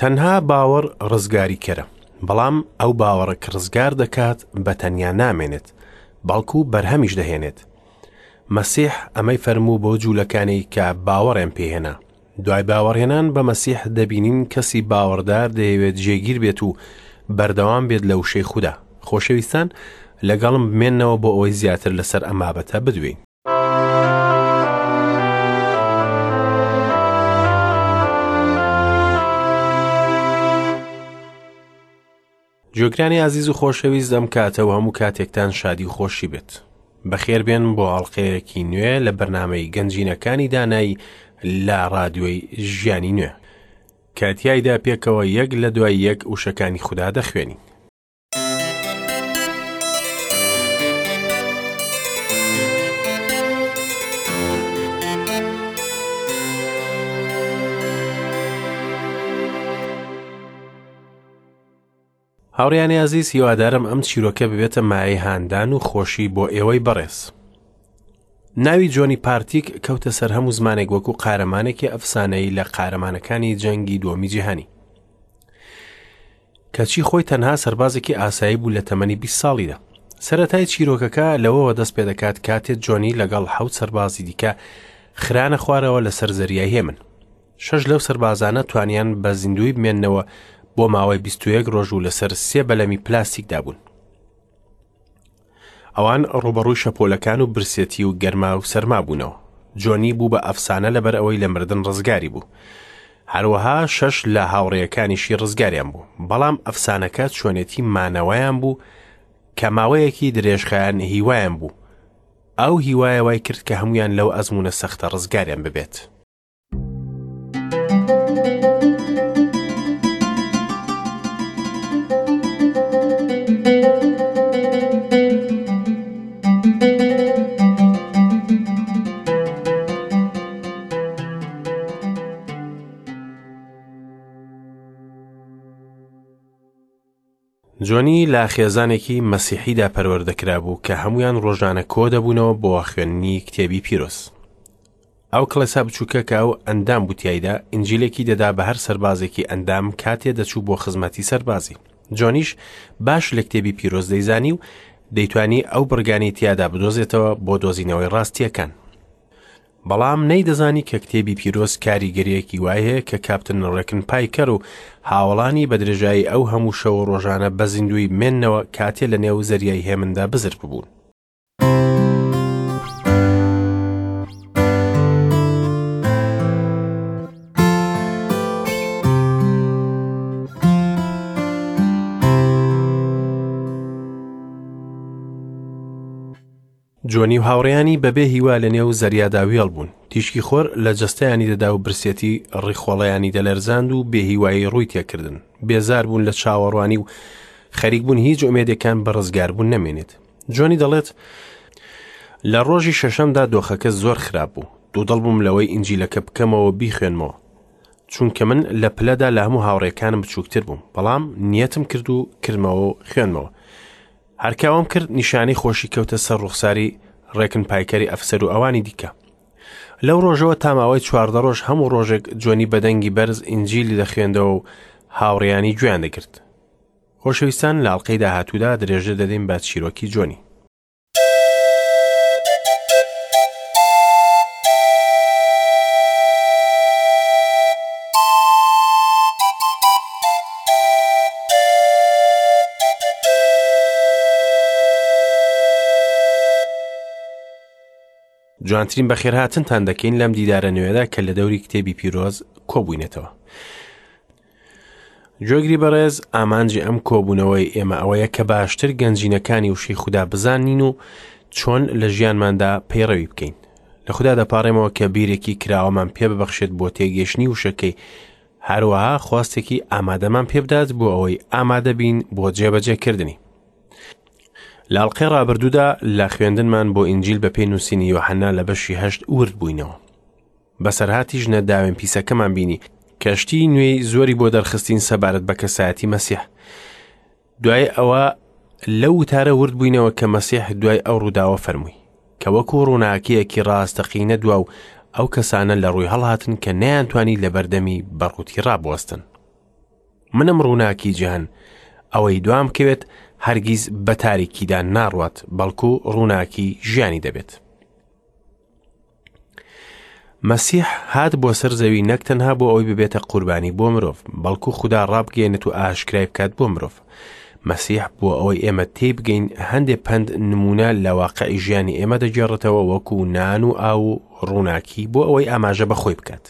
تەنها باوەڕ ڕزگاریکەرە، بەڵام ئەو باوەڕە کە ڕزگار دەکات بە تەنیا نامێنێت، بەڵکو بەرهەمیش دەهێنێت. مەسیح ئەمەی فەرموو بۆ جوولەکانی کە باوەڕیان پێهێنا. دوای باوەڕهێنان بە مەسیح دەبینین کەسی باوەڕدار دەیەوێت جێگیر بێت و بەردەوام بێت لە وشەی خودا. خۆشەویستان لەگەڵم بمێنەوە بۆ ئەوەی زیاتر لەسەر ئەم بابەتە بدوێین. گوێگرانی ئازیز و خۆشەویست ئەم کاتە و هەموو کاتێکتان شادی و خۆشی بێت. بەخێربێن بۆ ئەڵلقەیەکی نوێ لە بەرنامەی گەنجینەکانی دانایی لە ڕادیۆی ژیانی نوێ کە تیایدا پێکەوە یەک لە دوای یەک وشەکانی خودا دەخوێنین. هاوڕیانی ئازیز هیوادارم ئەم چیرۆکە ببێتە مایەی هاندان و خۆشی بۆ ئێوەی بەڕێز. ناوی جۆنی پارتیک کەوتە سەر هەموو زمانێک وەکو قارەمانێکی ئەفسانەیی لە قارەمانەکانی جەنگی دووەمی جیهانی. کەچی خۆی تەنها سەربازێکی ئاسایی بوو لە تەمەنی 20 ساڵیدا. سەرەتای چیرۆکەکە لەوەوە دەست پێ دەکات کاتێ جۆنی لەگەڵ حەوت سەربازی دیکە خرانە خوارەوە لەسەر زەریای هێمن. شەش لەو سەربازانە توانیان بە زیندووی بمێننەوە بۆ ماوەی 21 ڕۆژ و لەسەر سێ بەلەمی پلاستیکدا بوون. ئەوان ڕووبەڕووی شەپۆلەکان و برسێتی و گەرما و سەرما بوونەوە. جۆنی بوو بە ئەفسانە لەبەر ئەوەی لە مردن ڕزگاری بوو. هەروەها شەش لە هاوڕێیەکانیشی ڕزگاریان بوو. بەڵام ئەفسانەکە چۆنێتی مانەوەیان بوو کە ماوەیەکی درێژخایەن هیوایان بوو. ئەو هیوایە وای کرد کە هەمویان لەو ئەزموونە سەختە ڕزگاریان ببێت. جۆنی لە خێزانێکی مەسیحیدا پەروەردە کرابوو کە هەمویان ڕۆژانە کۆ دەبوونەوە بۆ خوێندنی کتێبی پیرۆز. ئەو کڵێسا بچووکە کە ئەو ئەندام بوو تیایدا، ئینجیلێکی دەدا بە هەر سەربازێکی ئەندام کاتێ دەچوو بۆ خزمەتی سەربازی. جۆنیش باش لە کتێبی پیرۆز دەیزانی و دەیتوانی ئەو بڕگانەی تیادا بدۆزێتەوە بۆ دۆزینەوەی ڕاستییەکان. بەڵام نەیدەزانی کە کتێبی پیرۆز کاریگەرییەکی وای هەیە کە کاپتن ڕێکن پایکەر و هاوەڵانی بە درێژایی ئەو هەموو شەو و ڕۆژانە بە زیندوویی بمێننەوە کاتێ لە نێو زەریای هێمندا بزر ببوون. جۆنی و هاوڕێیانی بەبێ هیوا لە نێو زەریادا وێڵ بوون. تیشکی خۆر لە جەستەیانی دەدا و برسێتی ڕیخۆڵەیانی دەلەرزاند و بێهیوایی ڕووی تێکردن. بێزار بوون لە چاوەڕوانی و خەریک بوون هیچ ئومێدێکان بە ڕزگاربوون نەمێنێت. جۆنی دەڵێت، لە ڕۆژی شەشەمدا دۆخەکە زۆر خراپ بوو. دوودڵ بووم لەوەی ئینجیلەکە بکەمەوە و بیخوێنمەوە. چونکە من لە پلەدا لە هەموو هاوڕێکانم بچووکتر بووم. بەڵام نیەتم کرد و کردمەوە و خوێندمەوە. هەر کە ئەوەم کرد نیشانەی خۆشی کەوتە سەر ڕوخساری ڕێکن پایکەری ئەفسەر و ئەوانی دیکە. لەو ڕۆژەوە تا ماوەی 14 ڕۆژ هەموو ڕۆژێک جۆنی بە دەنگی بەرز ئینجیلی دەخوێندەوە و هاوڕێیانی گوێیان دەگرت. خۆشەویستان لە ئەڵقەی داهاتوودا درێژە دەدەین بە چیرۆکی جۆنی. جوانترین بەخێرهاتنتان دەکەین لەم دیدارە نوێدا کە لە دەوری کتێبی پیرۆز کۆبووینەتەوە. گوێگری بەڕێز ئامانجی ئەم کۆبوونەوەی ئێمە ئەوەیە کە باشتر گەنجینەکانی وشەی خودا بزانین و چۆن لە ژیانماندا پەیڕەوی بکەین. لە خودا دەپاڕێمەوە کە بیرێکی کراوەمان پێ ببەخشێت بۆ تێگەیشتنی وشەکەی، هەروەها خواستێکی ئامادەمان پێبدات بۆ ئەوەی ئامادە بین بۆ جێبەجێکردنی. لە ئەڵقەی ڕابردوودا لە خوێندنمان بۆ ئینجیل بە پێی نووسینی یۆحەنا لە بەشی هەشت ورد بووینەوە. بەسەرهاتی ژنە داوێن پیسەکەمان بینی کە شتی نوێی زۆری بۆ دەرخستین سەبارەت بە کەسایەتی مەسیح. دوای ئەوە لەو وتارە ورد بووینەوە کە مەسیح دوای ئەو ڕووداوە فەرمووی کە وەکو ڕووناکییەکی ڕاستەقینە دوا و ئەو کەسانە لە ڕووی هەڵهاتن کە نەیانتوانی لە بەردەمی بەڕووتی ڕابوەستن. منم ڕووناکی جیهان، ئەوەی دوام بکەوێت هەرگیز بە تاریکیدا ناڕوات، بەڵکو ڕووناکی ژیانی دەبێت. مەسیح هات بۆ سەر زەوی نەک تەنها بۆ ئەوەی ببێتە قوربانی بۆ مرۆڤ، بەڵکو خودا ڕابگەیەنێت و ئاشکرای بکات بۆ مرۆڤ. مەسیح بۆ ئەوەی ئێمە تێی بگەین هەندێ پەند نمونە لە واقعی ژیانی ئێمە دەگێڕێتەوە وەکو نان و ئاو و ڕووناکی بۆ ئەوەی ئاماژە بە خۆی بکات.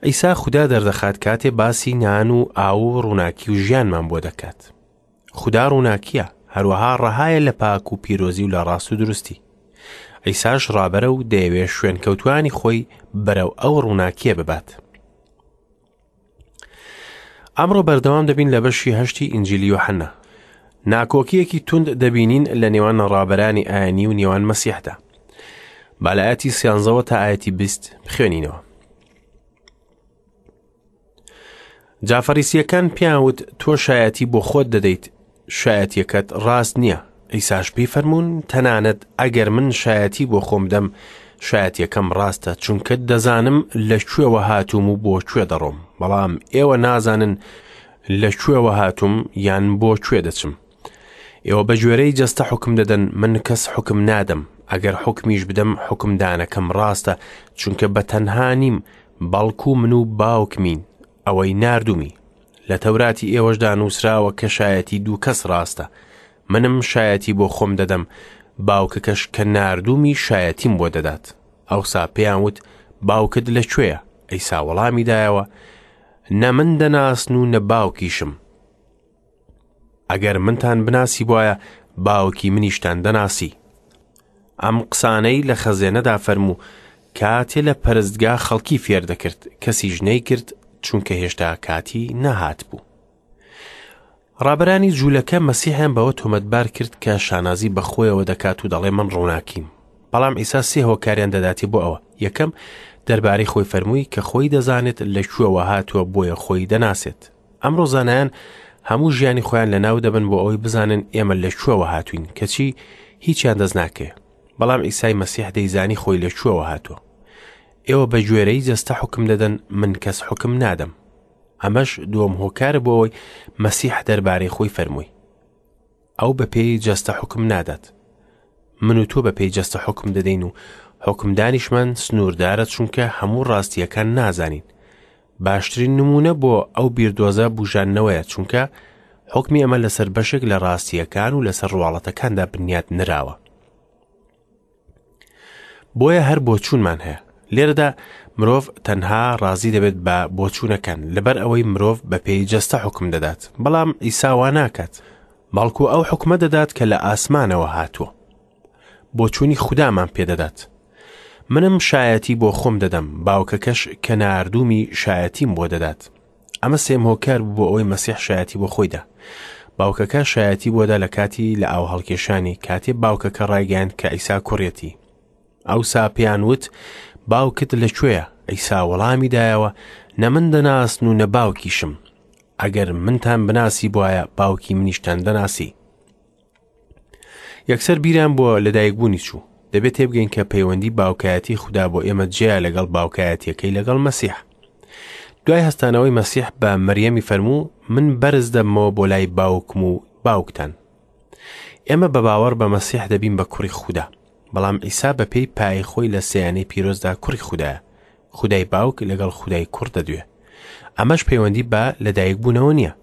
عیسا خودا دەردەخات کاتێ باسی نان و ئاو و ڕووناکی و ژیانمان بۆ دەکات. خودا ڕووناکییە، هەروەها ڕەهایە لە پاک و پیرۆزی و لە ڕاست و دروستی. عیساش ڕابەرە و دەیەوێ شوێنکەوتوانی خۆی بەرەو ئەو ڕووناکییە ببات. ئەمڕۆ بەردەوام دەبین لە بەشی هەشتی ئینجیلی یۆحەنا. ناکۆکییەکی توند دەبینین لە نێوان ڕابەرانی ئاینی و نێوان مەسیحدا. با لە ئاەتی سیانزەوە تا ئاەتی بیست بخوێنینەوە. جا فەریسییەکان پێیان وت تۆ شایەتی بۆ خۆت دەدەیت شایەتیەکەت ڕاست نییە ئیساش پێی فەرموون تەنانەت ئەگەر من شایەتی بۆ خۆم دەم شایەتیەکەم ڕاستە چونکە دەزانم لە کوێوە هاتووم و بۆ کوێ دەڕۆم بەڵام ئێوە نازانن لە کوێوە هاتووم یان بۆ کوێ دەچم ئێوە بە گوێرەی جەستە حوکم دەدەن، من کەس حوکم نادەم، ئەگەر حوکمیش بدەم حوکمدانەکەم ڕاستە، چونکە بە تەنها نیم، بەڵکو من و باوکمین، ئەوەی ناردوومی. لە تەوراتی ئێوەشدا نووسراوە کە شایەتی دوو کەس ڕاستە. منم شایەتی بۆ خۆم دەدەم، باوکەکەش کە ناردوومی شایەتیم بۆ دەدات. ئەوسا پێیان وت، باوکت لە کوێیە؟ عیسا وەڵامی دایەوە، نە من دەناسن و نە باوکیشم. ئەگەر منتان بناسیبوایە باوکی منیشتان دەناسی. ئەم قسانەی لە خەزێنەدا فەرموو کاتێ لە پەرستگا خەڵکی فێر دەکرد، کەسیش نەیکرد چونکە هێشتا کاتی نەهاتبوو. ڕابەرانی جوولەکە مەسیحیان بەوە تۆمەتبار کرد کە شانازی بە خۆیەوە دەکات و دەڵێ من ڕووناکیم. بەڵام عیسا سێ هۆکاریان دەداتێ بۆ ئەوە. یەکەم، دەربارەی خۆی فەرمووی کە خۆی دەزانێت لە کوێوە هاتووە بۆیە خۆی دەناسێت. ئەمڕۆ زانایان هەموو ژیانی خۆیان لە ناو دەبن بۆ ئەوەی بزانن ئێمە لە کوێوە هاتوین کەچی هیچیان دەست ناکەوێ بەڵام ئیسای مەسیح دەیزانی خۆی لە کوێوە هاتووە ئێوە بە گوێرەی جەستە حکم دەدەن من کەس حکم نادەم ئەمەش دووەم هۆکارە بۆ ئەوەی مەسیح دەربارەی خۆی فەرمووی ئەو بە پێی جەستە حوکم نادات. من و تۆ بە پێی جەستە حوکم دەدەین و حوکمدانیشمان سنووردارە چونکە هەموو ڕاستییەکان نازانین. باشترین نموونە بۆ ئەو بیردۆزە بوژاندنەوەیە چونکە حوکمی ئەمە لەسەر بەشێک لە ڕاستییەکان و لەسەر ڕواڵەتەکاندا بنیات نراوە. بۆیە هەر بۆچوونمان هەیە. لێرەدا مرۆڤ تەنها ڕازی دەبێت بە بۆچوونەکان لەبەر ئەوەی مرۆڤ بە پێی جەستە حوکم دەدات، بەڵام عیسا وا ناکات، بەڵکو ئەو حوکمە دەدات کە لە ئاسمانەوە هاتووە. بۆچوونی خودامان پێدەدات. منم شایەتی بۆ خۆم دەدەم، باوکەکەش کە ناردوومی شایەتیم بۆ دەدات. ئەمە سێم هۆکار بوو بۆ ئەوەی مەسیح شایەتی بۆ خۆی دا. باوکەکە شایەتی بۆ دا لە کاتی لە ئاو هەڵکێشانی، کاتێ باوکەکە ڕایگەیاند کە عیسا کوڕیەتی. ئەوسا پێیان وت، باوکت لە کوێیە؟ عیسا وەڵامی دایەوە، نە من دەناسن و نە باوکیشم. ئەگەر منتان بناسیبوایە، باوکی منیشتان دەناسی. یەکسەر بیران بۆ لەدایکبوونی چوو. دەبێت تێبگەین کە پەیوەندی باوکایەتی خودا بۆ ئێمە جیایە لەگەڵ باوکایەتیەکەی لەگەڵ مەسیح. دوای هەستانەوەی مەسیح بە مەریەمی فەرموو من بەرز دەبمەوە بۆ لای باوکم و باوکتان. ئێمە بە باوەڕ بە مەسیح دەبین بە کوڕی خودا. بەڵام عیسا بە پێی پای خۆی لە سێیانەی پیرۆزدا کوڕی خودایە. خودای باوک لەگەڵ خودای کوڕ دەدوێ. ئەمەش پەیوەندی بە لەدایکبوونەوە نییە.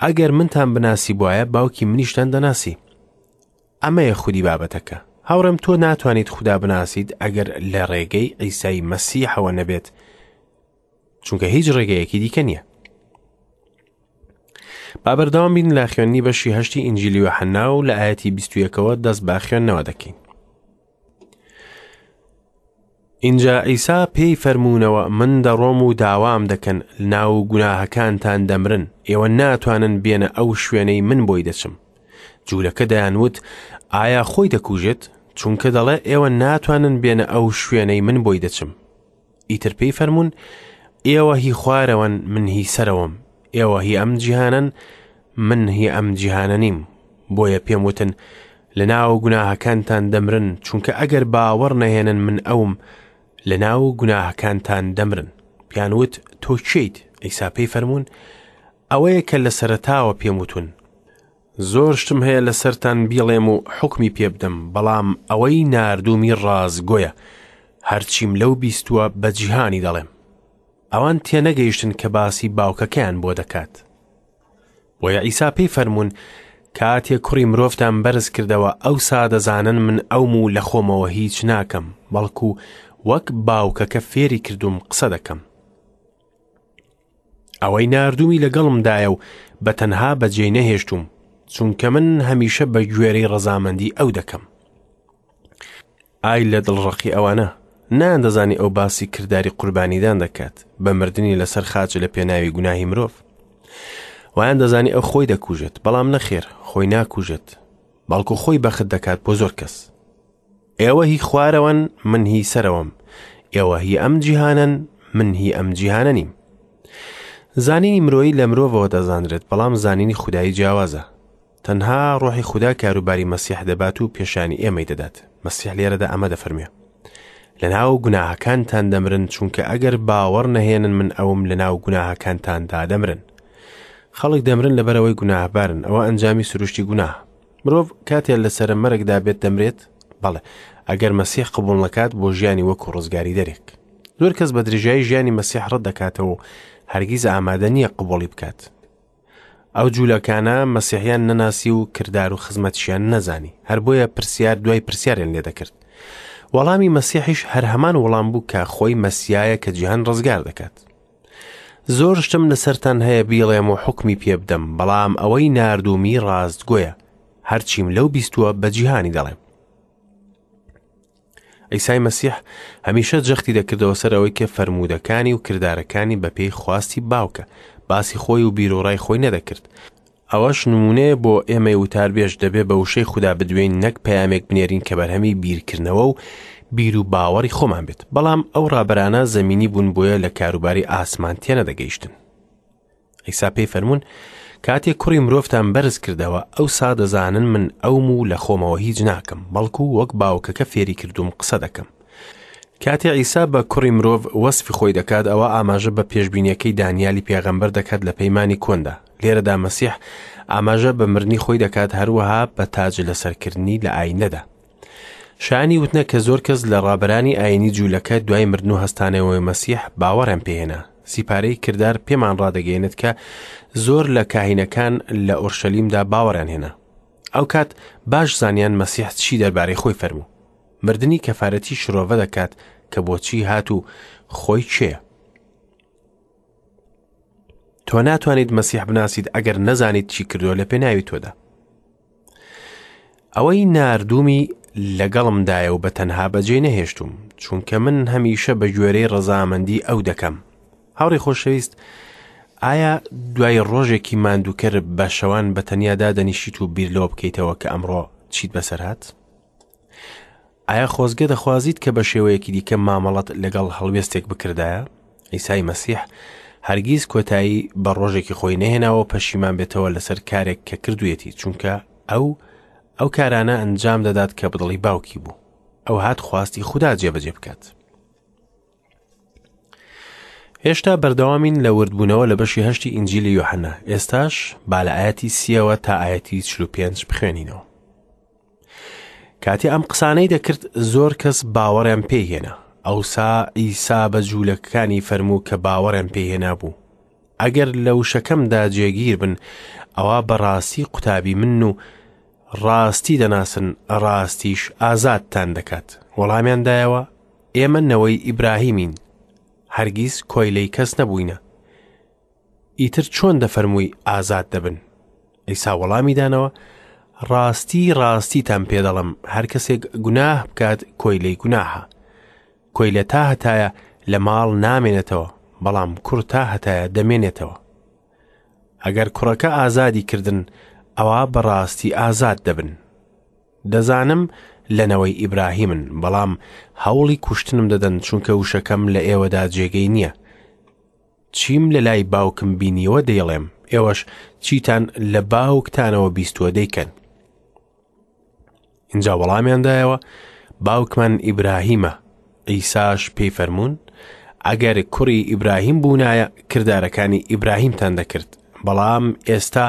ئەگەر منتان بناسیبوایە باوکی منیشتان دەناسی. ئەمەیە خودی بابەتەکە. هاوڕێم تۆ ناتوانیت خودا بناسیت ئەگەر لە ڕێگەی عیسای مەسیحەوە نەبێت، چونکە هیچ ڕێگەیەکی دیکە نییە. با بەردەوام بین لە خوێندنی بەشی هەشتی ئینجیلی یۆحەنا و لە ئایەتی 21ەوە دەست بە خوێندنەوە دەکەین. ئینجا عیسا پێی فەرموونەوە من دەڕۆم و داوام دەکەن لەناو گوناهەکانتان دەمرن ئێوە ناتوانن بێنە ئەو شوێنەی من بۆی دەچم جوولەکە دەیانوت ئایا خۆی دەکوژێت چونکە دەڵێ ئێوە ناتوانن بێنە ئەو شوێنەی من بۆی دەچم ئیتر پێی فەرموون ئێوە هی خوارەوەن من هی سەرەوەم ئێوە هی ئەم جیهانەن من هی ئەم جیهانە نیم بۆیە پێم وتن لە ناو گوناهەکانتان دەمرن چونکە ئەگەر باوەڕ نەهێنن من ئەوم لە ناو گوناهەکانتان دەمرن پیان وت تۆ کێیت عیسا پێی فەرموون ئەوەیە کە لە سەرەتاوە پێم وتون. زۆر شتم هەیە لەسەرتان بیڵێم و حوکمی پێ بدەم، بەڵام ئەوەی ناردوومی ڕاستگۆیە، هەرچیم لەو بیستووە بە جیهانی دەڵێم. ئەوان تێنەگەیشتن کە باسی باوکەکەیان بۆ دەکات. بۆیە عیسا پێی فەرموون، کاتێ کوڕی مرۆڤتان بەرز کردەوە، ئەوسا دەزانن من ئەوم و لە خۆمەوە هیچ ناکەم، بەڵکو وەک باوکەکە فێری کردووم قسە دەکەم. ئەوەی ناردوومی لەگەڵمدایە و بە تەنها بەجێی نەهێشتووم، چونکە من هەمیشە بە گوێرەی ڕەزامەندی ئەو دەکەم. ئای لە دڵڕەقی ئەوانە! نەیاندەزانی ئەو باسی کرداری قوربانیدان دەکات بە مردنی لەسەر خاچ لە پێناوی گوناهی مرۆڤ. وایان دەزانی ئەو خۆی دەکوژێت، بەڵام نەخێر خۆی ناکوژێت، بەڵکو خۆی بەخت دەکات بۆ زۆر کەس. ئێوە هی خوارەوەن، من هی سەرەوەم. ئێوە هی ئەم جیهانەن، من هی ئەم جیهانە نیم. زانینی مرۆیی لە مرۆڤەوە دەزانرێت، بەڵام زانینی خودایی جیاوازە. تەنها ڕۆحی خودا کاروباری مەسیح دەبات و پێشانی ئێمەی دەدات. مەسیح لێرەدا ئەمە دەفەرموێ. لەناو گوناهەکانتان دەمرن، چونکە ئەگەر باوەڕ نەهێنن من ئەوم لەناو گوناهەکانتاندا دەمرن. خەڵک دەمرن لەبەرئەوەی گوناهبارن، ئەوە ئەنجامی سروشتی گوناهە. مرۆڤ کاتێ لە سەرە مەرگدا بێت دەمرێت؟ بەڵێ، ئەگەر مەسیح قبوڵ نەکات بۆ ژیانی وەکو ڕزگاریدەرێک. زۆر کەس بە درێژایی ژیانی مەسیح ڕەت دەکاتەوە و هەرگیز ئامادە نییە قبوڵی بکات. ئەو جوولەکانە مەسیحیان نەناسی و کردار و خزمەتیشیان نەزانی، هەر بۆیە پرسیار دوای پرسیاریان لێ دەکرد. وەڵامی مەسیحیش هەر هەمان وەڵام بوو کە خۆی مەسیایە کە جیهان ڕزگار دەکات. زۆر شتم لەسەرتان هەیە بیڵێم و حوکمی پێ بدەم، بەڵام ئەوەی ناردوومی ڕاستگۆیە، هەرچیم لەو بیستووە بە جیهانی دەڵێم. عیسای مەسیح هەمیشە جەختی دەکردەوە سەر ئەوەی کە فەرموودەکانی و کردارەکانی بەپێی خواستی باوکە، باسی خۆی و بیروڕای خۆی نەدەکرد. ئەوەش نموونەیە بۆ ئێمەی وتاربێژ، دەبێ بە وشەی خودا بدوێین نەک پەیامێک بنێرین کە بەرهەمی بیرکردنەوە و بیر و باوەڕی خۆمان بێت. بەڵام ئەو ڕابەرانە زەمینی بوون بۆیە لە کاروباری ئاسمان تێنەدەگەیشتن. عیسا پێی فەرموون، کاتێک کوڕی مرۆڤتان بەرز کردەوە، ئەوسا دەزانن من ئەوم و لە خۆمەوە هیچ ناکەم، بەڵکو وەک باوکەکە فێری کردووم قسە دەکەم. کاتێ عیسا بە کوڕی مرۆڤ وەسفی خۆی دەکات، ئەوا ئاماژە بە پێشبینیەکەی دانیالی پێغەمبەر دەکات لە پەیمانی کۆندا. لێرەدا مەسیح ئاماژە بە مردنی خۆی دەکات، هەروەها بە تاج لەسەرکردنی لە ئایندەدا. شایانی وتنە کە زۆر کەس لە ڕابەرانی ئایینی جوولەکە دوای مردن و هەستانەوەی مەسیح باوەڕیان پێهێنا. سیپارەی کردار پێمان ڕادەگەیەنێت کە زۆر لە کاهینەکان لە ئۆرشەلیمدا باوەڕیان هێنا. ئەو کات باش زانیان مەسیح چی دەربارەی خۆی فەرموو. مردنی کەفارەتی شرۆڤە دەکات کە بۆچی هات و خۆی کێیە. تۆ ناتوانیت مەسیح بناسیت ئەگەر نەزانیت چی کردووە لە پێناوی تۆدا. ئەوەی ناردوومی لەگەڵمدایە و بە تەنها بەجێ نەهێشتوم، چونکە من هەمیشە بە گوێرەی ڕەزامەندی ئەو دەکەم. هاوڕێی خۆشەویست، ئایا دوای ڕۆژێکی ماندووکەر بە شەوان بە تەنیا دادەنیشیت و بیر لەوە بکەیتەوە کە ئەمڕۆ چیت بەسەر هات؟ ئایا خۆزگە دەخوازیت کە بە شێوەیەکی دیکە مامەڵەت لەگەڵ هەڵوێستێک بکردایە؟ عیسای مەسیح هەرگیز کۆتایی بە ڕۆژێکی خۆی نەهێناوە پەشیمان بێتەوە لەسەر کارێک کە کردوویەتی، چونکە ئەو ئەو کارانە ئەنجام دەدات کە بەدڵی باوکی بوو. ئەو هات خواستی خودا جێبەجێ بکات. هێشتا بەردەوامین لە وردبوونەوە لە بەشی هەشتی ئینجیلی یۆحەنا. ئێستاش با لە ئاەتی سیەوە تا ئاەتی 45 بخوێنینەوە. کاتێ ئەم قسانەی دەکرد زۆر کەس باوەڕیان پێی هێنا. ئەوسا عیسا بە جوولەکەکانی فەرموو کە باوەڕیان پێی هێنابوو، ئەگەر لە وشەکەمدا جێگیر بن، ئەوا بەڕاستی قوتابی منن و ڕاستی دەناسن، ڕاستیش ئازادتان دەکات. وەڵامیان دایەوە، ئێمە نەوەی ئیبراهیمین، هەرگیز کۆیلەی کەس نەبووینە. ئیتر چۆن دەفەرمووی ئازاد دەبن؟ عیسا وەڵامی دانەوە، ڕاستی ڕاستیتان پێ دەڵێم، هەر کەسێک گوناه بکات کۆیلەی گوناهە. کۆیلە تا هەتایە لە ماڵ نامێنێتەوە، بەڵام کوڕ تا هەتایە دەمێنێتەوە. ئەگەر کوڕەکە ئازادی کردن، ئەوا بەڕاستی ئازاد دەبن. دەزانم لە نەوەی ئیبراهیمن، بەڵام هەوڵی کوشتنم دەدەن، چونکە وشەکەم لە ئێوەدا جێگەی نییە. چیم لە لای باوکم بینیوە دەیڵێم، ئێوەش چیتان لە باوکتانەوە بیستووە دەیکەن. ئینجا وەڵامیان دایەوە، باوکمان ئیبراهیمە. عیساش پێی فەرموون، ئەگەر کوڕی ئیبراهیم بوونایە، کردارەکانی ئیبراهیمتان دەکرد. بەڵام ئێستا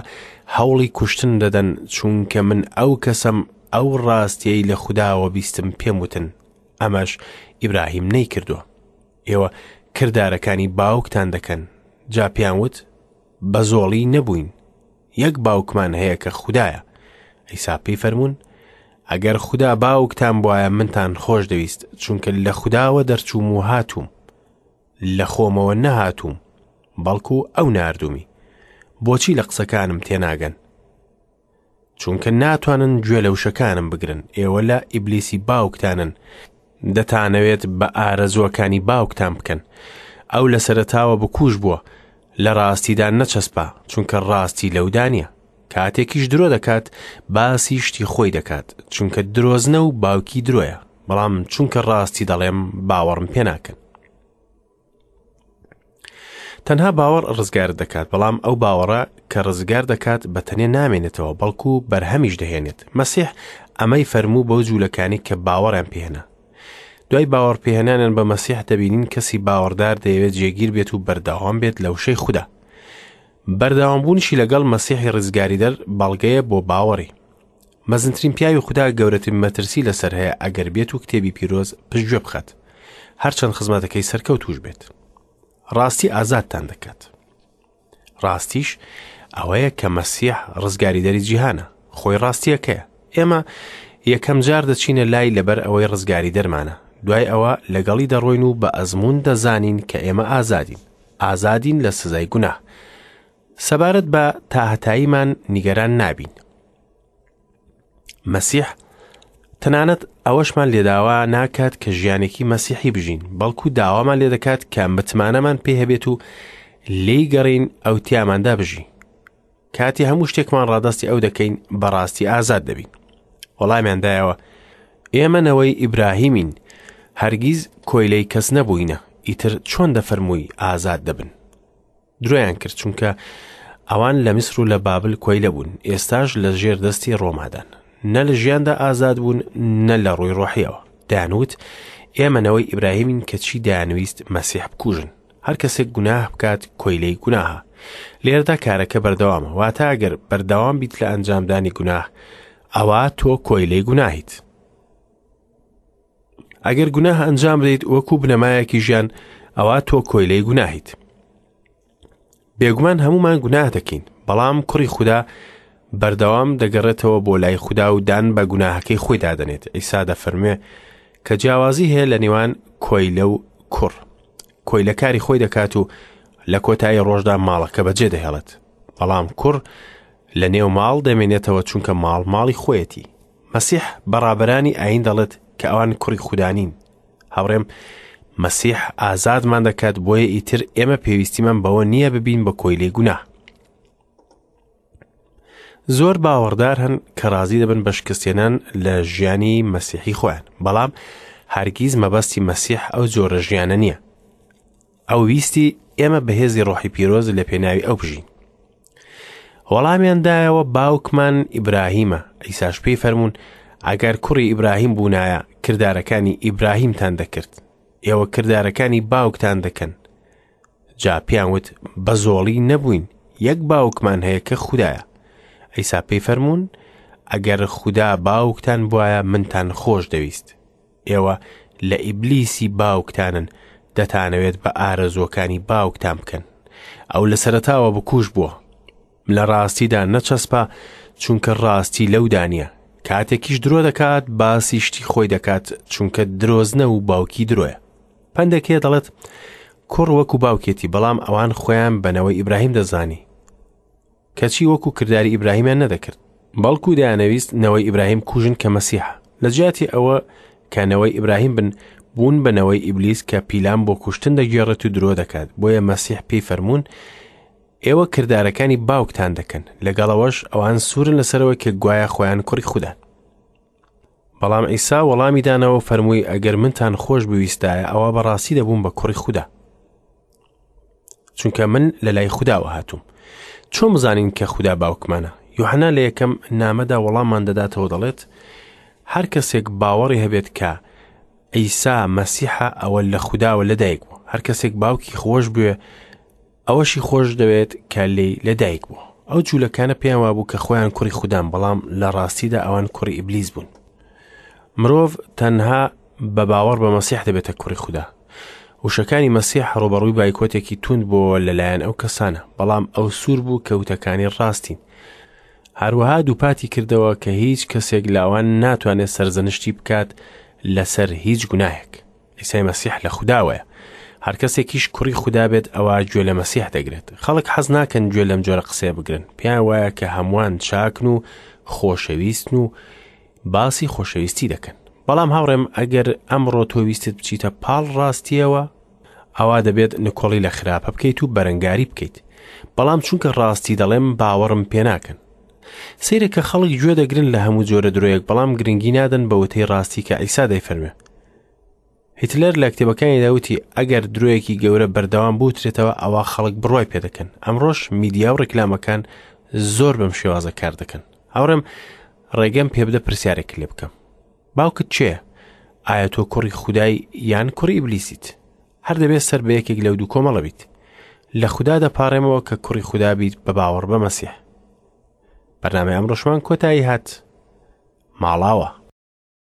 هەوڵی کوشتن دەدەن، چونکە من ئەو کەسەم ئەو ڕاستیەی لە خوداوە بیستم پێم وتن، ئەمەش ئیبراهیم نەیکردووە. ئێوە کردارەکانی باوکتان دەکەن. جا پێیان وت، بە زۆڵی نەبووین، یەک باوکمان هەیە کە خودایە. عیسا پێی فەرموون، ئەگەر خودا باوکتان بوایە منتان خۆش دەویست، چونکە لە خوداوە دەرچووم و هاتووم. لە خۆمەوە نەهاتووم، بەڵکو ئەو ناردوومی. بۆچی لە قسەکانم تێناگەن؟ چونکە ناتوانن گوێ لە وشەکانم بگرن. ئێوە لە ئیبلیسی باوکتانن، دەتانەوێت بە ئارەزووەکانی باوکتان بکەن. ئەو لە سەرەتاوە بکوژ بووە، لە ڕاستیدا نەچەسپا، چونکە ڕاستی لەودا نییە. کاتێکیش درۆ دەکات، باسی شتی خۆی دەکات، چونکە درۆزنە و باوکی درۆیە. بەڵام چونکە ڕاستی دەڵێم، باوەڕم پێ ناکەن. تەنها باوەڕ ڕزگارت دەکات، بەڵام ئەو باوەڕە کە ڕزگار دەکات بە تەنێ نامێنێتەوە، بەڵکو بەرهەمیش دەهێنێت. مەسیح ئەمەی فەرموو بەو جوولەکانی کە باوەڕیان پێهێنا. دوای باوەڕ پێهێنانیان بە مەسیح دەبینین کەسی باوەڕدار دەیەوێت جێگیر بێت و بەردەوام بێت لە وشەی خودا. بەردەوامبوونیشی لەگەڵ مەسیحی ڕزگاریدەر بەڵگەیە بۆ باوەڕی. مەزنترین پیاوی خودا گەورەترین مەترسی لەسەر هەیە ئەگەر بێت و کتێبی پیرۆز پشتگوێ بخات، هەرچەند خزمەتەکەی سەرکەوتوش بێت. ڕاستی ئازادتان دەکات. ڕاستیش ئەوەیە کە مەسیح ڕزگاریدەری جیهانە، خۆی ڕاستیەکەیە. ئێمە یەکەم جار دەچینە لای لەبەر ئەوەی ڕزگاری دەرمانە، دوای ئەوە لەگەڵی دەڕۆین و بە ئەزموون دەزانین کە ئێمە ئازادین، ئازادین لە سزای گوناه. سەبارەت بە تاهەتاییمان نیگەران نابین. مەسیح تەنانەت ئەوەشمان لێداوا ناکات کە ژیانێکی مەسیحی بژین، بەڵکو داوامان لێدەکات کە متمانەمان پێ هەبێت و لێی گەڕین ئەو تیاماندا بژی. کاتی هەموو شتێکمان ڕادەستی ئەو دەکەین، بەڕاستی ئازاد دەبین. وەڵامیان دایەوە، ئێمە نەوەی ئیبراهیمین، هەرگیز کۆیلەی کەس نەبووینە، ئیتر چۆن دەفەرمووی ئازاد دەبن؟ درۆیان کرد، چونکە ئەوان لە میسر و لە بابل کۆیلە بوون، ئێستاش لە ژێر دەستی ڕۆمادان. نە لە ژیاندا ئازاد بوون، نە لە ڕووی ڕۆحیەوە. دەیانوت ئێمە نەوەی ئیبراهیمین، کەچی دەیانویست مەسیح بکوژن. هەر کەسێک گوناه بکات کۆیلەی گوناهە. لێرەدا کارەکە بەردەوامە، واتە ئەگەر بەردەوام بیت لە ئەنجامدانی گوناه، ئەوا تۆ کۆیلەی گوناهیت. ئەگەر گوناه ئەنجام بدەیت وەکو بنەمایەکی ژیان، ئەوا تۆ کۆیلەی گوناهیت. بێگومان هەمومان گوناه دەکەین، بەڵام کوڕی خودا بەردەوام دەگەڕێتەوە بۆ لای خودا و دان بە گوناهەکەی خۆی دادەنێت. عیسا دەفەرموێ کە جیاوازی هەیە لە نێوان کۆیلە و کوڕ. کۆیلە کاری خۆی دەکات و لە کۆتایی ڕۆژدا ماڵەکە بەجێ دەهێڵێت، بەڵام کوڕ لە نێو ماڵ دەمێنێتەوە، چونکە ماڵ ماڵی خۆیەتی. مەسیح بە ڕابەرانی ئایین دەڵێت کە ئەوان کوڕی خودا نین. هاوڕێم، مەسیح ئازادمان دەکات، بۆیە ئیتر ئێمە پێویستیمان بەوە نییە ببین بە کۆیلەی گوناه. زۆر باوەڕدار هەن کە ڕازی دەبن بە شکستێنان لە ژیانی مەسیحی خۆیان، بەڵام هەرگیز مەبەستی مەسیح ئەو جۆرە ژیانە نییە. ئەو ویستی ئێمە بەهێزی ڕۆحی پیرۆز لە پێناوی ئەو بژین. وەڵامیان دایەوە باوکمان ئیبراهیمە. عیساش پێی فەرموون ئەگەر کوڕی ئیبراهیم بوونایە کردارەکانی ئیبراهیمتان دەکرد. ئێوە کردارەکانی باوکتان دەکەن. جا پێیان وت بە زۆڵی نەبووین، یەک باوکمان هەیە کە خودایە. عیسا پێی فەرموون ئەگەر خودا باوکتان بوایە منتان خۆش دەویست. ئێوە لە ئیبلیسی باوکتانن، دەتانەوێت بە ئارەزووەکانی باوکتان بکەن. ئەو لە سەرەتاوە بکوژ بووە، لە ڕاستیدا نەچەسپا، چونکە ڕاستی لەودا نییە. کاتێکیش درۆ دەکات باسی شتی خۆی دەکات، چونکە درۆزنە و باوکی درۆیە. پەندێک هەیە دەڵێت کوڕ وەکو باوکێتی، بەڵام ئەوان خۆیان بە نەوەی ئیبراهیم دەزانی، کەچی وەکو کرداری ئیبراهیمیان نەدەکرد، بەڵکو دەیانەویست نەوەی ئیبراهیم کوژن کە مەسیحە. لە جیاتی ئەوە کە نەوەی ئیبراهیم بن، بوون بە نەوەی ئیبلیس کە پیلان بۆ کوشتن دەگێڕێت و درۆ دەکات. بۆیە مەسیح پێی فەرموون ئێوە کردارەکانی باوکتان دەکەن. لەگەڵەوەش ئەوان سوورن لەسەرەوە کە گوایە خۆیان کوڕی خودان. بەڵام عیسا وەڵامی دانەوە و فەرمووی ئەگەر منتان خۆش بویستایە ئەوە بەڕاستی دەبووم بە کوڕی خودا، چونکە من لە لای خوداوە هاتووم. چۆن بزانین کە خودا باوکمانە؟ یوحنا لە یەکەم نامەدا وەڵاممان دەداتەوە دەڵێت هەر کەسێک باوەڕی هەبێت کە عیسا مەسیحە ئەوە لە خوداوە لەدایک بوو. هەر کەسێک باوکی خۆش بوێ ئەوەشی خۆش دەوێت کە لێی لەدایک بووە. ئەو جوولەکانە پێیان وابوو کە خۆیان کوڕی خودان، بەڵام لە ڕاستیدا ئەوان کوڕی ئیبلیس بوون. مرۆڤ تەنها بە باوەڕ بە مەسیح دەبێتە کوڕی خودا. وشەکانی مەسیح ڕووبەڕووی بایکۆتێکی توند بووەوە لەلایەن ئەو کەسانە، بەڵام ئەو سوور بوو کە وتەکانی ڕاستین. هەروەها دووپاتی کردەوە کە هیچ کەسێک لە ئەوان ناتوانێت سەرزەنشتی بکات لەسەر هیچ گوناهێک. عیسای مەسیح لە خوداوەیە. هەر کەسێکیش کوڕی خودا بێت ئەوا گوێ لە مەسیح دەگرێت. خەڵک حەز ناکەن گوێ لەم جۆرە قسەیە بگرن. پێیان وایە کە هەمووان چاکن و خۆشەویستن و باسی خۆشەویستی دەکەن. بەڵام هاوڕێم ئەگەر ئەمڕۆ تۆ ویستت بچیتە پاڵ ڕاستیەوە ئەوا دەبێت نکۆڵی لە خراپە بکەیت و بەرەنگاری بکەیت. بەڵام چونکە ڕاستی دەڵێم باوەڕم پێ ناکەن. سەیرە کە خەڵک گوێ دەگرن لە هەموو جۆرە درۆیەک بەڵام گرنگی نادەن بە وتەی ڕاستی کە عیسا دەیفەرموێ. هیتلەر لە کتێبەکانیدا وتی ئەگەر درۆیەکی گەورە بەردەوام بوترێتەوە ئەوا خەڵک بڕوای پێدەکەن. ئەمڕۆش میدیا و ڕیکلامەکان زۆر بەم شێوازە کار دەکەن. هاوڕێم ڕێگەم پێبدە پرسیارێک لێ بکەم. باوکت کێیە؟ ئایا تۆ کوڕی خودای یان کوڕی ئیبلیسیت؟ هەر دەبێت سەر بە یەکێک لەو دوو کۆمەڵە بیت. لە خودا دەپاڕێمەوە کە کوڕی خودا بیت بە باوەڕ بە مەسیح. بەرنامەی ئەمڕۆشمان کۆتایی هات. ماڵاوە.